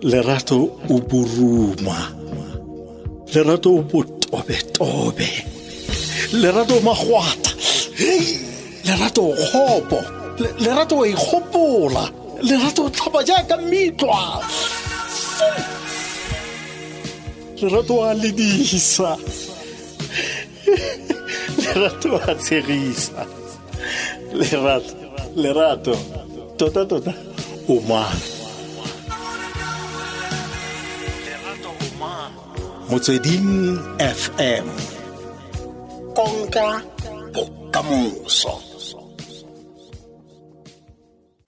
Lerato o boruma. Lerato o botobetobe. Lerato o magwata. Hei, lerato o kgopo. Lerato o ikgopola. Lerato o tlhapa jaaka mitlwa. Lerato a ledisa. Lerato a tshegisa. Lerato, lerato. Tota tota o mang? Motsweding FM. Konka bokamoso.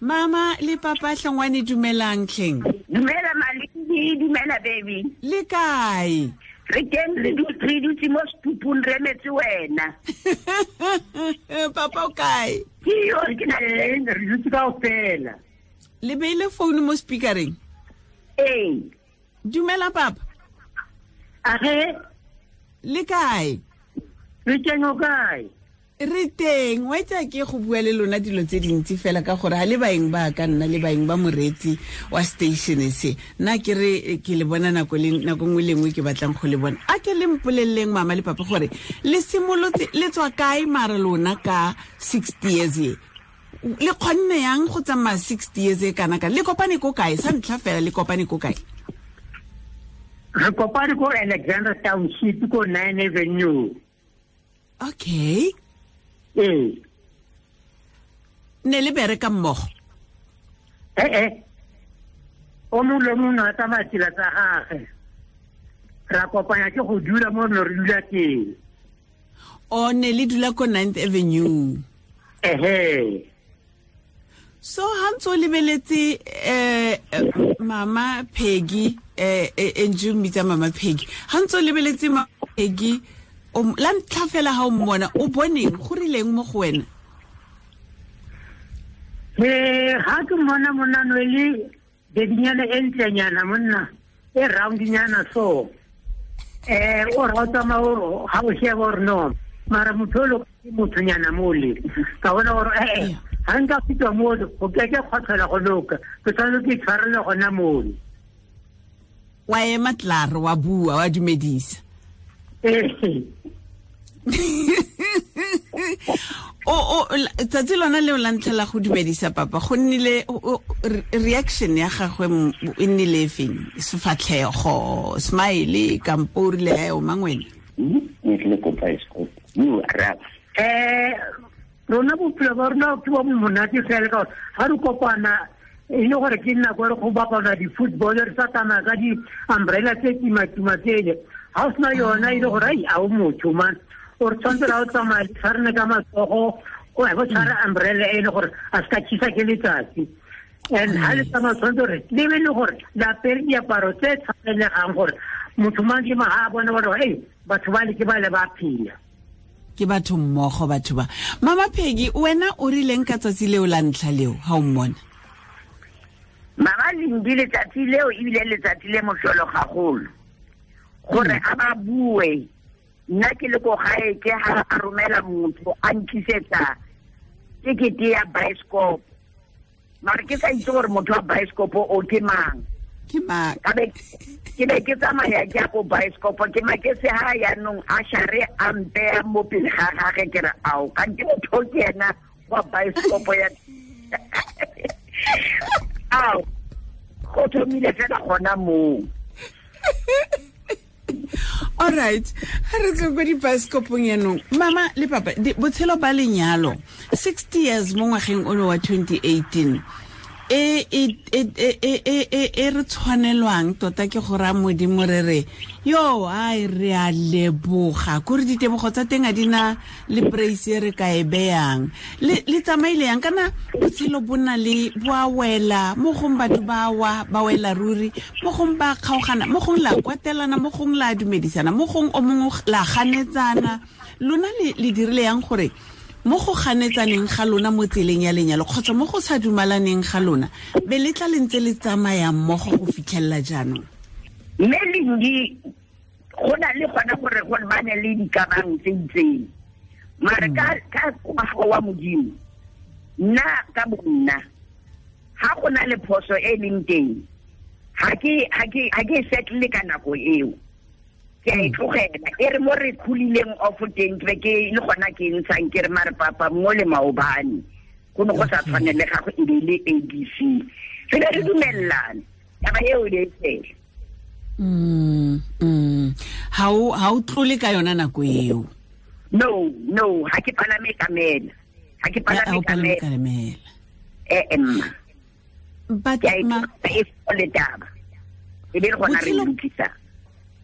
Mama le papa Hlongwane, dumelang tlheng. Dumela Malindi, dumela baby. Le kae? Re teng, re dutse mo setupung re emetse wena. Papa o kae? Ke yo, ke na le re dutse kaofela. Le beile phone mo speakereng? Ee. Dumela papa. Age? Le kae? Re teng, o kae? Re teng. Wa itse ke go bua le lona dilo tse dintsi fela ka gore ha le baeng ba ka nna le baeng ba moreetsi wa station se. Nna ke re ke le bona nako le nako nngwe le nngwe ke batlang go le bona. A ke le mpoleleng mama le papa gore le simolotse le tswa kae mara lona ka 60 years e? Le kgonne yang go tsamaya 60 years e kana ka? Le kopane ko kae? Sa ntlha fela le kopane ko kae? Re kopane ko Alexandra Township ko 9 Avenue. Okay. Ee. Ne le bereka mmogo? Eh. O mongwe le mongwe a tsamaya tsela tsa gagwe. Ra kopanya ke go dula mo re dula teng. O ne le dula ko 9th Avenue? Ehe. So ha ntse o lebeletse Mama Peggy, e mmitsa Mama Peggy. Ha ntse o lebeletse Mama Peggy, la ntlha fela ha o mmona, o boneng go rileng mo go wena? Ha ke mmona monna no le bedinyana e ntlenyana monna, e roundinyana so. O ra o tsamaya o ha o sheba gore no, mara motho o ke mothonyana mole. Ka bona gore ha nka fitwa mo go ke ke kgwatlhela go loka, ke tshwanetse ke itshwarele gona mole. Wa ema tlar, wa bua, wa dumedisa. O tsatsi lona leo la ntlha la go dumedisa papa, go nnile reaction ya gagwe e nnile e feng? Sefatlhego, smile, kampo o rile o mang wena? Ne ke le ko bioscope. You araba. Rona bophelo ba rona ke bo monate fela ka gore ha re kopana e le gore ke nako re go bapala di-football, re sa tsamaya ka di-umbrella tse kima-kima tsele. Ha o sena yona e le gore ai a o motho man, o re tshwanetse ra o tsamaya le tshwarane ka matsogo, o bo tshwara umbrella e le gore a se ka tjhisa ke letsatsi. And ha le tsamaya tshwanetse gore le be le gore le apere diaparo tse tshwanelegang gore motho mang ke mang ha a bona gore ei batho ba le ke ba le ba phela. Ke batho mmogo batho ba. Mama Peggy, wena o rileng ka tsatsi leo la ntlha leo ha o mmona? Mama Lindi, letsatsi leo ebile letsatsi le mohlolo gagolo. Gore a ba bue, nna ke le ko gae ke ha a romela motho a ntlisetsa tekete ya bioscope. Mara ke sa itse gore motho wa bioscope o ke mang. Ke mang? Ka be ke be ke tsamaya ke ya ko bioscope, ke maketse ha yaanong a share a mpeya mo pele ga gagwe, ke re ao, kante motho ke ena wa bioscope ya ao, go thomile fela gona moo. All right, ha re tswe ko dibaesekopong yanong. Mama le papa, botshelo ba lenyalo 60 years mo ngwageng ono wa 2018 e re tshwanelwang tota ke go raya Modimo re re yo ai re a leboga kore ditebogo tsa teng a di na le praise e re ka e beyang. Le tsamaile yang kana botshelo bo na le bo a wela mo gong batho ba wa ba wela ruri, mo gong ba kgaogana, mo gong la kwatelana, mo gong la dumedisana, mo gong o mongwe la ganetsana. Lona le dirile yang gore mo go ganetsaneng ga lona mo tseleng ya lenyalo kgotsa mo go sa dumalaneng ga lona be le tla le ntse le tsamaya mmogo go fitlhelela jaanong? Mme Lindi, go na le gona gore go bane le dikamang tse itseng, mare ka ngwaga wa Modimo, nna ka bonna ga go na le phoso e leng teng, Ha ke settle ka nako eo. Ke a e tlogela e re mo re khulileng off teng ke ke le gona ke ntshang ke re mare papa mo le maobane go ne go sa tshwane le gago e be le ABC re be re dumellana taba eo e fela. Ha o tlole ka yona nako eo? No, ha ke palame kamela. Ha ke palame kamela. But ma e le taba e be re gona re lokisa.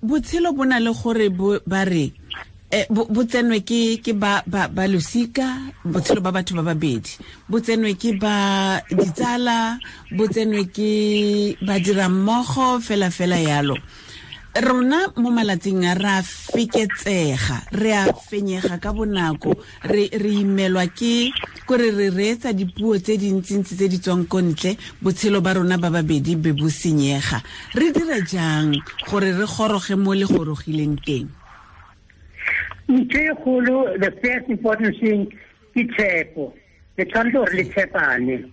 Botshelo bona le gore ba re bo tsenwe ke ba ba losika, botshelo ba batho ba babedi bo tsenwe ke ba ditsala, bo tsenwe ke ba dira mmogo fela fela yalo. Rona mo malatsing a ra feketsega, re a fenyega ka bonako, re imelwa ke kore re reetsa dipuo tse dintsintsi tse di tswang ko ntle, botshelo ba rona ba babedi be bo senyega. Re dira jang gore re goroge mo le gorogileng teng? Ntho e kgolo, the first important thing ke tshepo. Le tshwanetse gore le tshepane,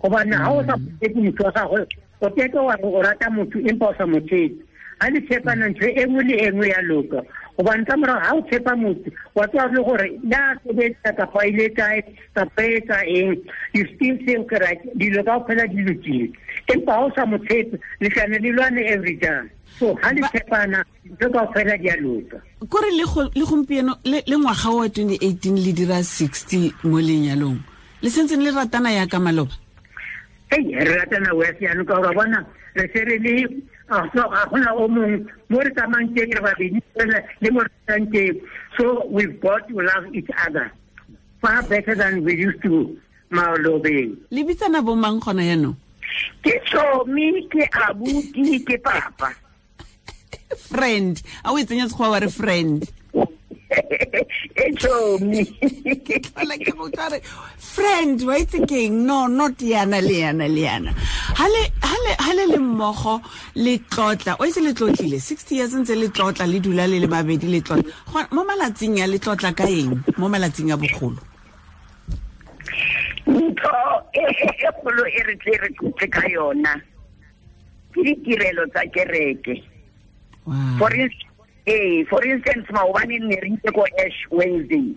gobane ga o sa tshepe motho wa gagwe, o keke wa re o rata motho empa o sa mo tshepe. Ha le tshepana ntho e nngwe le e nngwe ya loka, gobane ka morago ga o tshepa motho wa tseba le gore le a sebetsa kapa ile kae kapa etsa eng, you still think right, dilo kaofela di lokile. Empa ha o sa mo tshepe, le tlane le lwane every time. So ha le tshepana ntho kaofela di a loka. Kore le gompieno le ngwaga wa 2018 le dira 60 mo lenyalong, le sentse le ratana ya ka maloba? Ei, re ratana wes jaanong ka gore bona re se re le ga gona o mongwe mo re tsamayang teng re babedi fela le mo re tsamayang teng. So we've got to love each other far better than we used to malobeng. Le bitsana bo mang gona jaanong? Ke Tsomi, ke abuti, ke papa. Friend, a o e tsenya sekgowa wa re friend? E Tsomi. Ke tlhola ke go utlwa re friend, wa itse keng? No, not yana le yana le yana. Ha le le mmogo le tlotla, o itse le tlotlile 60 years ntse le tlotla, le dula le le babedi le tlotla. Mo malatsing a le tlotla ka eng? Mo malatsing a bogolo? Ntho e kgolo e re tle re tlotle ka yona ke ditirelo tsa kereke. For instance, maobane ne re itse ko Ash Wednesday.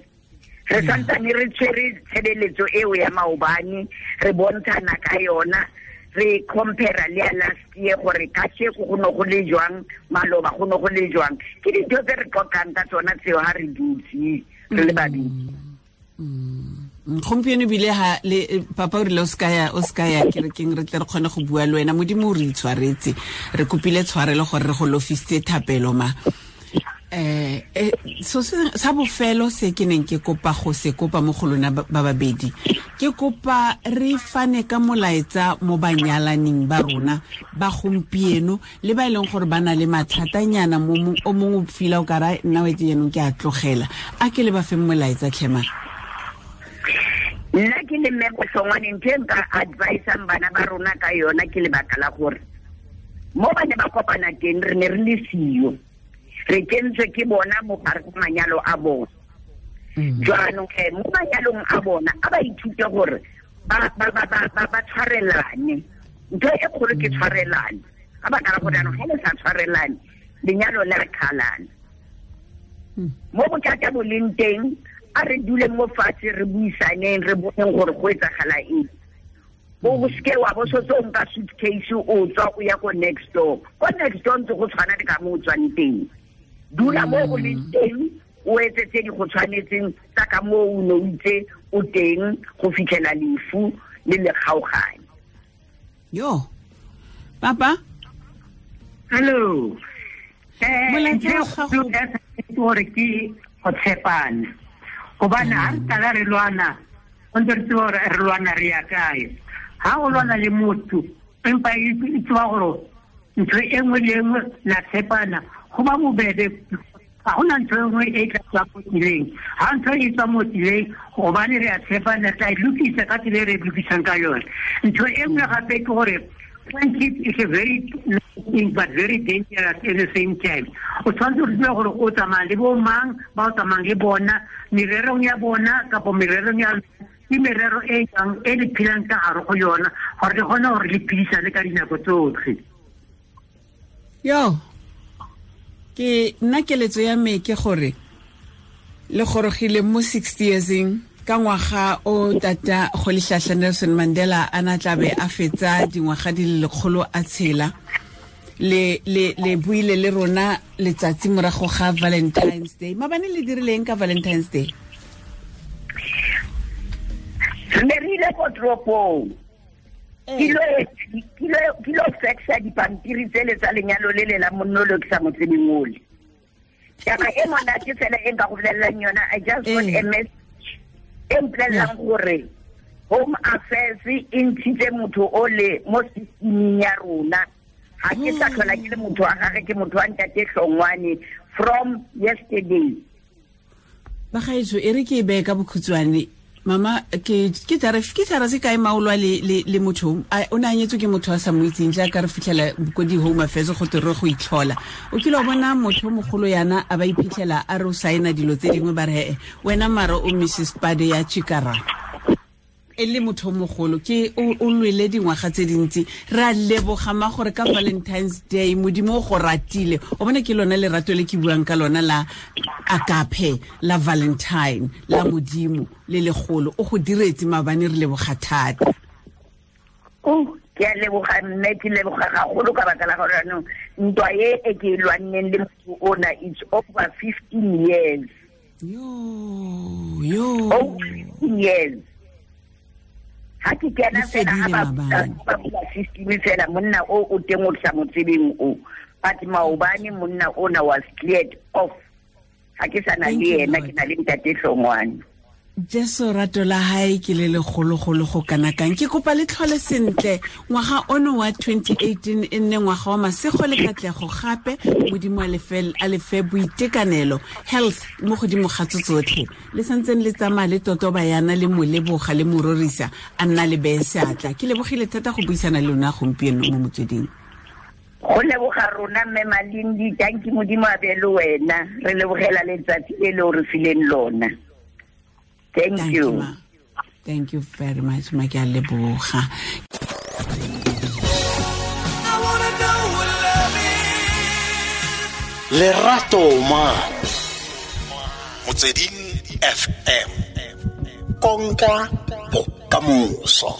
Re santsane re tshwere tshebeletso eo ya maobane, re bontshana ka yona, re compare le ya last year gore kasheko go ne go le jwang, maloba go ne go le jwang. Ke dintho tse re qoqang ka tsona tseo ha re dutse re le babedi. Gompieno bile ha le papa o rile o ska ya kerekeng, re tle re kgone go bua le wena. Modimo o re itshwaretse, re kopile tshwarelo gore re go lofisitse thapelo ma. So sa bofelo se ke neng ke kopa go se kopa mo go lona ba babedi, ke kopa re fane ka molaetsa mo banyalaneng ba rona ba gompieno le ba e leng gore ba na le mathatanyana mo o mongwe o fila o ka ra nna o etse jaanong ke a tlogela. A ke le ba feng molaetsa tlhema? Nna ke le mme Bohlongwane, ntho e nka advisang bana ba rona ka yona ke lebaka la gore mo ba ne ba kopana teng re ne re le siyo, re kentswe ke bona mo gare ga manyalo a bona. Jwanong ge mo manyalong a bona a ba ithute gore ba tshwarelane. Ntho e kgolo ke tshwarelane, ka baka la gore jaanong ga le sa tshwarelane lenyalo le re kgalana. Mo bothata bo leng teng a re dule mo fatshe re buisaneng, re boneng gore go etsagala eng. O seke wa bo sotse o nka suitcase o tswa o ya ko next door. Ko next door ntse go tshwana le ka mo o tswang teng. Dula mo o leng teng, o etse tse di go tshwanetseng tsa ka moo o ne o itse o teng go fitlhela lefu le le kgaogane. Yo, papa? Hello. Molaetsa wa gago gore ke go tshepana, gobane ha re qala re lwana, o ntse re tseba gore re lwana re ya kae. Ha o lwana le motho empa e tseba gore ntho e nngwe le e nngwe la tshepana, go ba bobebe. Ga gona ntho e nngwe e tla tswa mo tseleng. Ha ntho e tswa mo tseleng, gobane re a tshepana, re tla e lokisa ka tsela e re e lokisang ka yone. Ntho e nngwe gape ke gore friendship is a very nice thing but very dangerous at the same time. O tshwanetse go tseba gore o tsamaya le bo mang, ba o tsamayang le bona, mererong ya bona kapo mererong ya ke merero e jang e le phelang ka gare go yona, gore le kgone gore le phedisane ka dinako tsotlhe. Yo, ke nna keletso ya me ke gore le gorogile mo 60 yearseng ka ngwaga o tata Rolihlahla Nelson Mandela a na tlabe a fetsa dingwaga di le lekgolo a tshela. Le le le buile le rona letsatsi morago ga Valentine's Day. Mabane le dirileng ka Valentine's Day? Re ne re ile ko toropong. Ke lo faxa dipampiri tsele tsa lenyalo le le la monno le ke sa mo tsebeng ole. Taba e monate fela e nka go bolelelang yona, I just got a message e mpolelelang gore Home Affairs e ntshitse motho ole mo systeming ya rona. Ha ke sa tlhola ke le motho wa gagwe, ke motho wa ntate Hlongwane from yesterday. Bagaetsho, e re ke e beye ka bokhutshwane. Mama, ke tara se kae maolwa le motho o ne a nyetswe ke motho a sa mo itseng, jaaka re fitlhela ko di-Home Affairs go te re go itlhola. O kile wa bona motho o mogolo yana a ba iphitlhela a re o saena dilo tse dingwe, ba re he wena mara o Mrs Pade ya Chikara. E le motho o mogolo, ke o lwele dingwaga tse dintsi. Re a leboga ma gore ka Valentine's Day Modimo o go ratile. O bone ke lona lerato le ke buang ka lona la agape, la Valentine, la Modimo le legolo. O go diretse maabane, re leboga thata. Oh, ke a leboga mme, ke leboga gagolo ka baka la gore jaanong ntwa e e ke e lwanneng le motho ona, it's over 15 years. Yo, yo. Over 15 years. Ha ke kena Le fela, ha fedile maabane. ba bula system fela, monna o o teng o sa mo tsebeng o. But maobane monna ona was cleared off. Ha ke sa na Thank le you, yena, Lord. ke na le ntate Hlongwane. Jesu rato la hae ke le legologolo go kana kang. Ke kopa le tlhole sentle ngwaga ono wa 2018 e nne ngwaga wa masego le katlego gape. Modimo a lefe boitekanelo, health mo godimo ga tso tsotlhe. Le santseng le tsamaya le totoba yana le mo leboga le mo rorisa, a nna le beye seatla. Ke lebogile thata go buisana le lona gompieno mo motsweding. Go leboga rona mme Malindi, thank you Modimo a be le wena. Re lebogela letsatsi le le o re fileng lona. Thank Thank you. you, ma. Thank you very much, ma, ke a leboga. Lerato ma. Motsweding FM. Konka bokamoso.